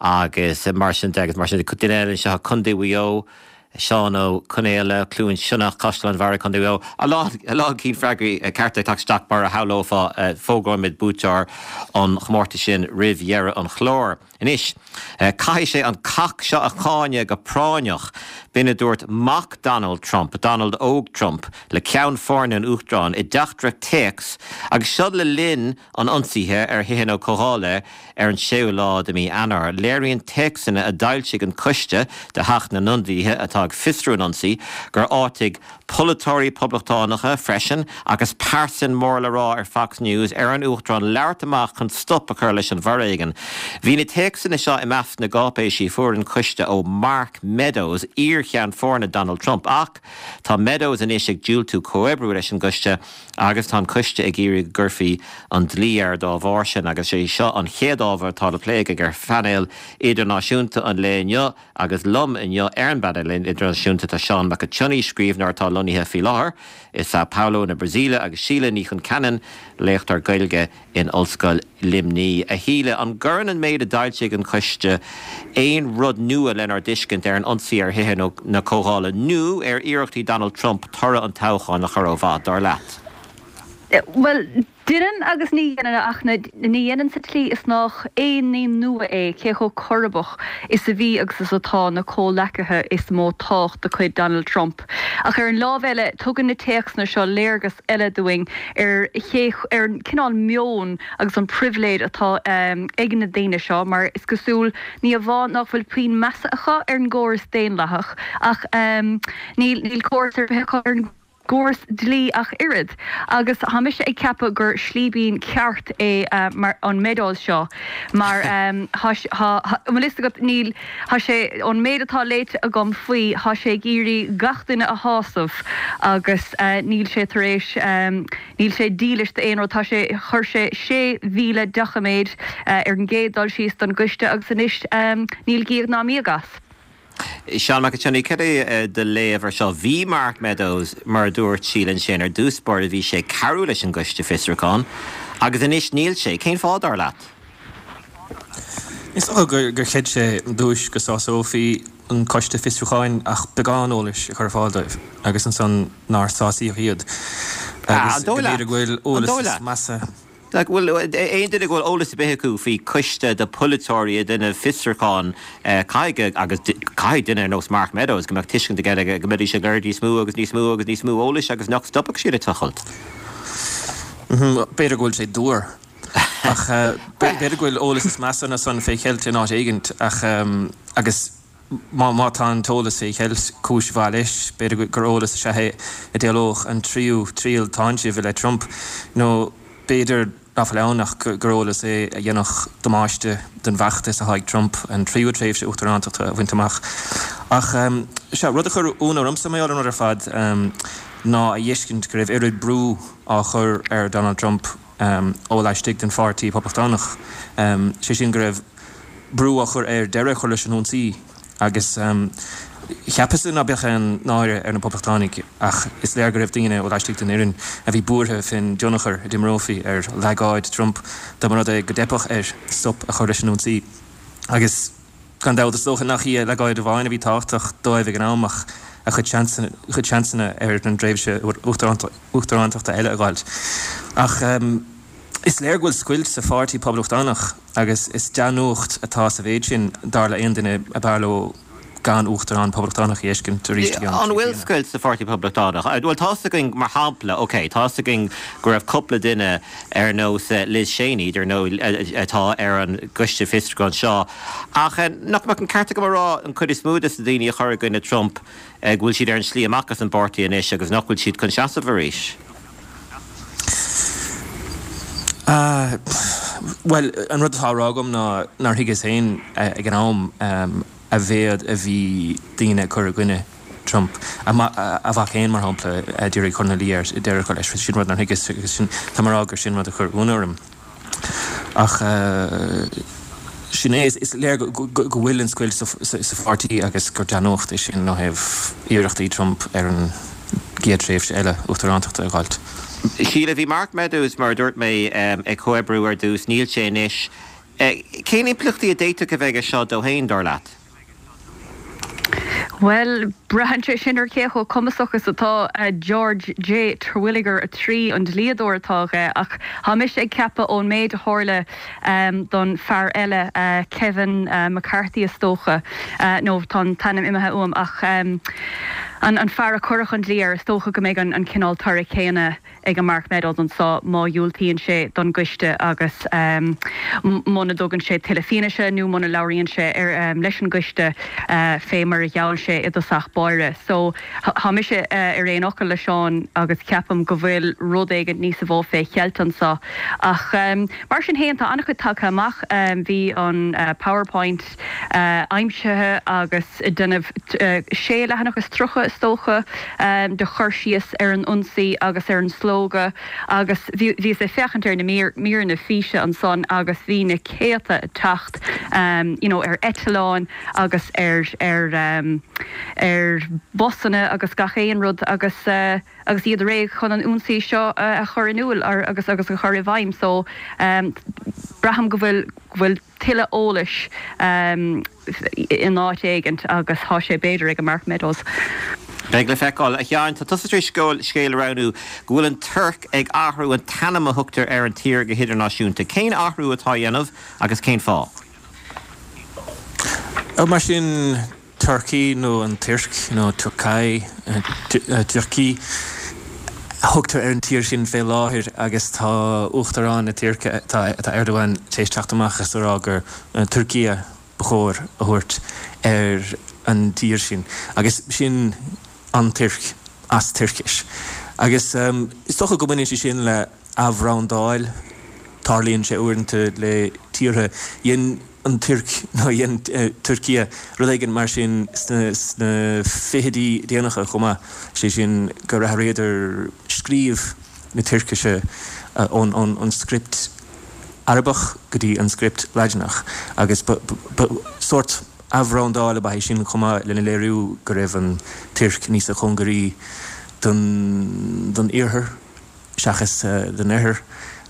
agus mar sin de agus mar sin de. Duine eile anseo i Contae Mhaigh Eo, Seán Ó Conaola, Cluain Sionnach, Caisleán Bharraigh, Contae Mhaigh Eo. A lán, a lán cinn freagraí cearta ag teacht isteach mar a shamhlófá. Fógróimid buaiteoir an chomórtais sin roimh dheireadh an chláir. Anois, caithfidh sé an cac seo a cháineadh go práinneach. B'in a dúirt mac Donald Trump, Donald Óg Trump, le ceann foirne an Uachtaráin i dteachtaireacht téacs agus seo le linn an ionsaithe ar Thithe na Comhdhála ar an séú lá de mhí Eanáir. Léiríonn téacsanna a d'fhoilsigh an coiste de Theach na nIonadaithe atá ag fiosrú an ionsaí gur áitigh polaiteoirí Poblachtánacha freisin agus pearsain mór le rá ar Fox News ar an Uachtarán labhairt amach chun stop a chur leis an bhforéigean. Bhí na téacsanna seo i measc na gcáipéisí a fuair an coiste ó Mark Meadows, iar-cheann foirne Donald Trump. Ach tá Meadows anois ag diúltú comhoibriú leis an gcoiste agus tá an coiste ag iarraidh go gcuirfí an dlí air dá bharr sin agus is é seo an chéad ábhar atá le plé againn ar phainéal idirnáisiúnta an lae inniu agus liom inniu ar an bpainéal idirnáisiúnta tá Seán Mac an tSionnaigh, scríbhneoir atá lonnaithe faoi láthair i Sao Paulo na Brasaíle agus Síle Ní Chonceanainn, léachtóir Gaeilge in Ollscoil Luimnigh. A Shíle, an gcuireann an méid a d'fhoilsigh an coiste aon rud nua lenár dtuiscint ar an ionsaí ar Thithe na Comhdhála nó ar iarrachtaí Donald Trump toradh an toghcháin a chur ó mhaith, dar leat? Bhuel, deineann agus ní dheineann, ach ní dheineann sa tslí is nách aon ní nua é cé chomh coirpeach is a bhí agus is atá na comhleacaithe is mó tábhacht de chuid Donald Trump. Ach ar an lámh eile, tugann na téacsanna seo léargas eile dúinn ar ché, ar an cineál meoin agus an pribhléid atá ag na daoine seo, mar is cosúil, ní amháin nach bhfuil puinn measa acu ar an gcóras daonlathach, ach níl, níl córas ar bith acu ar an gcóras dlí ach oiread. Agus tá mise ag ceapadh gur slíbín ceart é mar, an Meadows seo, mar tá, tá, an bhfuil fhios agat, níl, Tá sé, ón méid atá léite agam faoi, tá sé ag iarraidh gach duine a shásamh agus níl sé tar éis, níl sé dílis d'aon rud. Tá sé, chuir sé 6,000 doiciméad ar an gcéad dul síos don gcoiste agus anois níl gíog ná míog as. Seán Mac an tSionnaigh, cad é do léamh ar seo? Bhí Mark Meadows, mar a dúirt Síle ansin, ar dtús báire bhí sé ag cabhrú leis an gcoiste fiosrúcháin agus anois níl sé. Cén fáth, dar leat? Is dócha gur chreid sé ar dtúis go sásófaí an coiste fiosrúcháin ach beagán eolais a chur ar fáil dóibh agus ansan nár sásaíodh iad agus go mb'fhéidir go bhfuil eolas is measa. Bhuel, aon duine go bhfuil eolas ar bith acu faoi coiste de pholaiteoirí ag déanamh fiosrúchán, caithfidh, agus caithfidh duine ar nós Mark Meadows go mbeadh tuiscint aige go mbeidís ag lorg níos mó agus níos mó agus níos mó eolais agus nach stopfadh siad ag tochailt. B'fhéidir go bhfuil sé dúr. Ach b'fhéidir go bhfuil eolas is measa ná san fé cheilt in áit éigint ach agus má tá an t-eolas fé cheilt, cúis mhaith leis, b'fhéidir gur eolas is ea é a d'éalódh an tríú triail táinsimh i leith Trump nó b'fhéidir ná fuil ann ach gur eolas é a dhéanfadh damáiste don bhfeachtas atá ag Trump an tríú tréimhse uachtarántachta a bhaint amach. Ach sea, rud a chuir ionadh ormsa mar gheall ar an rud ar fad ná a fheiscint go raibh oiread brú á chur ar Donald Trump ó laistigh den Pháirtí Poblachtánach, sé sin go raibh brú á chur air deireadh a chur leis an ionsaí agus. Cheapas-sa ná beadh aon náire ar na Poblachtánaigh ach is léir go raibh daoine ó laistigh den fhoireann a bhí buartha fén dtionchar a d'imreofaí ar leagáid Trump dá mba rud é go dteipfeadh air stop a chur leis an ionsaí. Agus gan dabht, is dócha nach í a leagáid amháin a bhí tábhachtach dóibh ag an am ach a chuid seansanna ar an dtréimhse uachtarántachta eile a dh'fháilt. Ach is léir go bhfuil scoilt sa pháirtí Poblachtánach agus is dea-nuacht atá sa mhéid sin, dar le aon duine ab fhearr leo gan uachtarán Poblachtánach a dh'fheiscint arís i gceann An bhfuil scoilt sa Pháirtí Poblachtánach? Bhuel, tá's againn, mar shampla, ok, tá's againn go raibh cúpla duine ar nós Liz Cheney, dar ndóigh, atá ar an gcoiste fiosrúcháin seo, ach nach mbeadh an ceart agam a rá an chuid is mó de na daoine a chuir i gcoinne Trump, go bhfuil siad ar an slí amach as an bpáirtí anois agus nach bhfuil siad chun seasamh arís? Bhuel, an rud atá á rá agam ná nár thuigeas féin ag an am, a mhéad a bhí daoine ag cur i gcoinne Trump. A mhac féin, mar shampla, a d'iarraidh cur ina luí air deireadh a chur leis. Sin rud nár thuigeas agus sin, tá mé a rá gur sin rud a chuir ionadh orm. Ach sin é, is léir go bhfuil an scoilt sa pháirtí agus gur dea-nuacht é sin ó thaobh iarrachtaí Trump ar an gcéad tréimhse eile uachtarántachta a dh'fháilt. Síle, bhí Mark Meadows, mar a dúirt mé, ag comhoibriú ar dtús, níl sé anois. Cén impleachtaí a d'fhéadfadh a bheith aige seo dó féin, dar leat? Bhuel, braitheann sé sin ar cé chomh cumasach is atá George J. Terwilliger 3, an dlíodóir atá aige, ach tá mise ag ceapadh ón méid a tharla don fear eile, Kevin McCarthy is dócha, nó tá an t-ainm imithe uaim, ach an fear a cuireadh an dlí air, is dócha go mbeidh an cineál toradh céanna ag an Mark Meadows anso má dhiúltaíonn sé don gcoiste agus muna dtugann sé tuilleadh fianaise nó muna labhraíonn sé leis an gcoiste fé mar a gheall sé i dtosach báire. So tá mise ar aon fhocal le Seán agus ceapaim go bhfuil rud éigin níosa mhó fé cheilt anso. Ach mar sin fhéin tá an-chuid tagtha amach. Bhí an PowerPoint aimsithe agus ag déanamh sé leathanach is 30, is dócha, de chur síos ar an ionsaí agus ar an slógadh agus bhíos ag féachaint ar na míreanna físe ansan agus bhí na céadta ag teacht you know ar eitleáin agus ar ar ar busanna agus gach aon rud agus agus iad réidh chun an ionsaí seo a chur in iúl agus agus a chur i bhfeidhm so braithim go bhfuil go bhfuil tuilleadh eolais in áit éigint agus tá sé b'fhéidir ag an Mark Meadows. Beidh le feiceáil. A Sheáin, tá tusa tar éis scéal a roghnú go bhfuil an Tuirc ag athrú an t-ainm a thugtar ar an tír go hidirnáisiúnta. Cén athrú atá á dhéanamh agus cén fáth? Mar sin. Turkey nó an Tuirc nó Turkai, Türkiye, a thugtar ar an tír sin fé láthair agus tá Uachtarán na Tuirce, tá Erdogan, tar éis teacht amach is a rá gur Türkiye ba chóir a thabhairt ar an dtír sin agus sin an Tuirc as Tuircis. Agus is dócha go mbaineann sé sin le athbhrandáil, tarlaíonn sé uaireanta le tíortha. Dhein. an Tuirc nó dhein Türkiye rud éigin mar sin sna fichidí déanacha chomh maith, sé sin gur athraíodar scríobh na Tuircise ón script Arabach go dtí an script Laidineach agus ba sórt athbhrandáil ab ea é sin chomh maith lena léiriú go raibh an Tuirc níosa chóngaraí don Iarthar. seachas don Oirthear.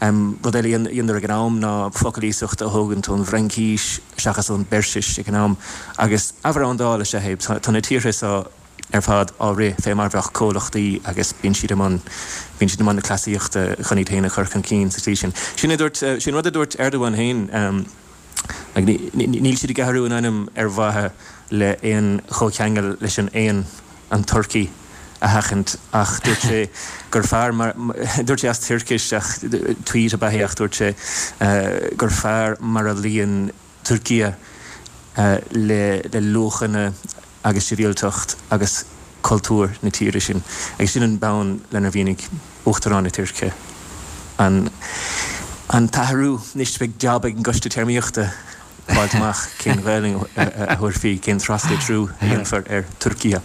Rud eile a dheineadar ag an am ná focail iasachta a thógaint ón bhFraincís seachas ón bPeirsis ag an am. Agus athbhrandáil is ea é. Tá na tíortha seo ar fad á rith fé mar bheadh comhlachtaí agus bíonn siad i mbun, bíonn siad i mbun na cleasaíochta chun iad féin a chur chun cinn sa tslí sin. Sin a dúirt, sin rud a dúirt Erdogan féin. Níl siad ag athrú an ainm ar mhaithe le aon chomhcheangal leis an éan, an turcaí, a sheachaint ach dúirt sé gur fearr mar, dúirt sé as Tuircis ach tweet ab ea é ach dúirt sé gur fearr mar a luíonn Türkiye le luachanna agus sibhialtacht agus cultúr na tíre sin. Agus sin an bonn lenar mhínigh Uachtarán na Tuirce an an t-athrú. Anois beidh jab ag an gCoiste Téarmaíochta fáilt amach cén Ghaelainn a thabharfaí, cén traslitriú a dhéanfar ar Türkiye.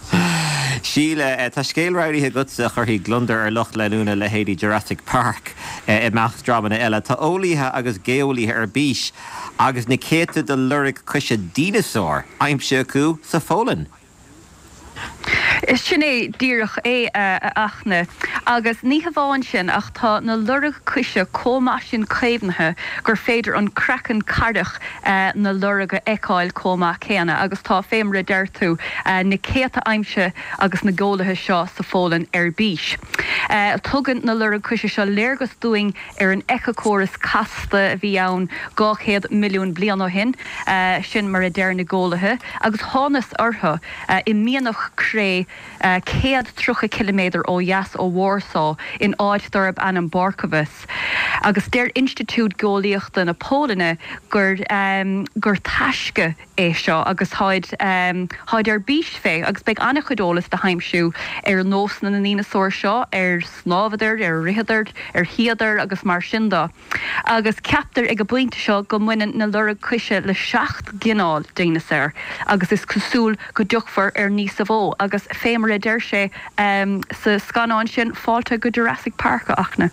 Síle, tá scéal roghnaithe agatsa a chuirfidh gliondar ar lucht leanúna leithéidí Jurassic Park, i measc dreamanna eile. Tá eolaithe agus geolaithe ar bís agus na céadta de loirg coise dineasár aimsithe acu sa Pholainn. Sin é díreach é, a Fhachtna. Agus ní hamháin sin, ach tá na loirg coise chomh maith sin caomhnaithe gur féidir an craiceann caorach na lorg a fheiceáil chomh maith céanna. Agus tá, fé mar a deir tú, na céadta aimsithe ages na geolaithe seo sa Pholainn ar bís. Tugann na loirg coise seo léargas dúinn ar an éiceachóras casta a bhí ann 200 milliún bliain ó shin, sin mar a deir na geolaithe, agus thánas orthu i mianach cré 130 ciliméadar ó dheas ó Warsaw in áit darb ainm Borkowice. Agus deir Institiúid Geolaíochta na Polainne gur gur taisce é seo agus táid táid ar bís fé agus beidh an-chuid eolas le haimsiú ar nósanna na ndíneasár seo, ar shnámhadar, ar ritheadar, ar shuíodar agus mar sin de. Agus ceaptar ag an bpointe seo go mbaineann na loirg coise le 7 gcineál dineasáir agus is cosúil go dtiocfar ar níosa mhó agus fé mar a deir sé sa scannán sin, fáilte go Jurassic Park, a Fhachtna.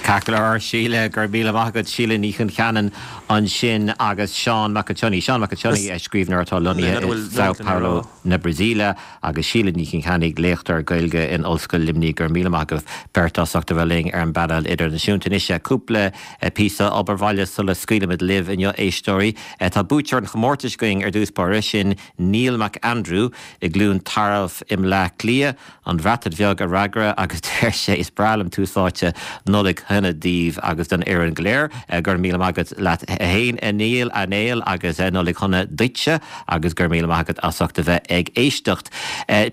Ceart go leor, Síle, go raibh míle maith agat. Síle Ní Choncheanainn ansin agus Seán Mac an tSionnaigh. Seán Mac an tSionnaigh, scríbhneoir atá lonnaithe i São Paulo na Brasaíle agus Síle Ní Choncheanainn, léachtóir Gaeilge in Ollscoil Luimnigh. Go raibh míle maith agaibh beirt as ucht a bheith linn ar an bpainéal idirnáisiúnta. Anois, cúpla píosa obair bhaile sula scaoilimid libh inniu, éisteoirí. Tá buaiteoir an chomórtais againn ar dtús báire, sin Neil McAndrew i gCluain Tarbh i mBleá Cliath. An Bhreatain Bheag a fhreagra agus deir sé Is breá liom tús áite Nollaig shona daoibh agus don fhoireann go léir. Go raibh míle maith agat leat fhéin a Neil, a Néill agus Nollaig shona duitse agus go raibh míle maith agat as ucht a bheith ag éisteacht.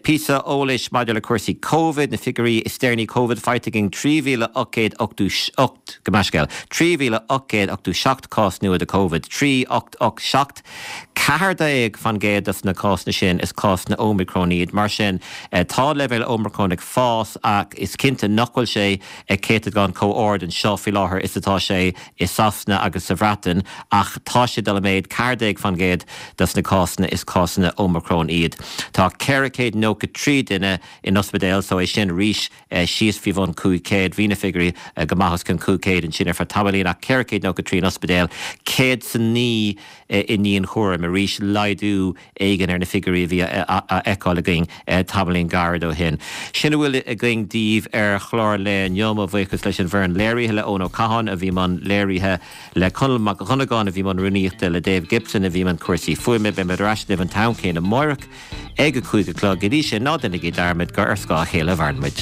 Píosa eolais maidir le cúrsaí Covid, na figiúirí is deireanaí Covid faighte againn 3,888, gabh mo leithscéal, 3,887 cás nua de Covid, 3887. 14% dos na cásanna sin, is cásanna Omicron iad. Mar sin, tá leibhéil Omicron ag fás ach is cinnte nach bhfuil sé ag céatadán chomh ard anseo faoi láthair is atá sé i Sasana agus sa Bhreatain ach tá sé ag dul i méad, 14% dos na cásanna is cásanna Omicron iad. Tá 493 duine in ospidéal so é sin arís síos faoi bhun 500. Bhí na figiúirí go maith os cionn 500 ansin ar feadh tamaillín ach 493 in ospidéal, 109 i ndianchúram. Arís laghdú éigin ar na figiúirí a bhí á fheiceáil againn tamaillín gairid ó shin. Sin a bhfuil againn daoibh ar chlár an lae inniu. Mo bhuíochas leis an bhfoireann léirithe, le Eoin Ó Catháin a bhí i mbun léirithe, le Conall Mac Dhonnagáin a bhí i mbun rúnaíochta, le Dave Gibson a bhí i mbun cúrsaí fuaime. Beimid ar ais libh an t-am céanna amáireach. Ag a 5 a chlog. Go dtí sin, ná déanaigí dearmad gur ar scáth a chéile a mhaireann muid.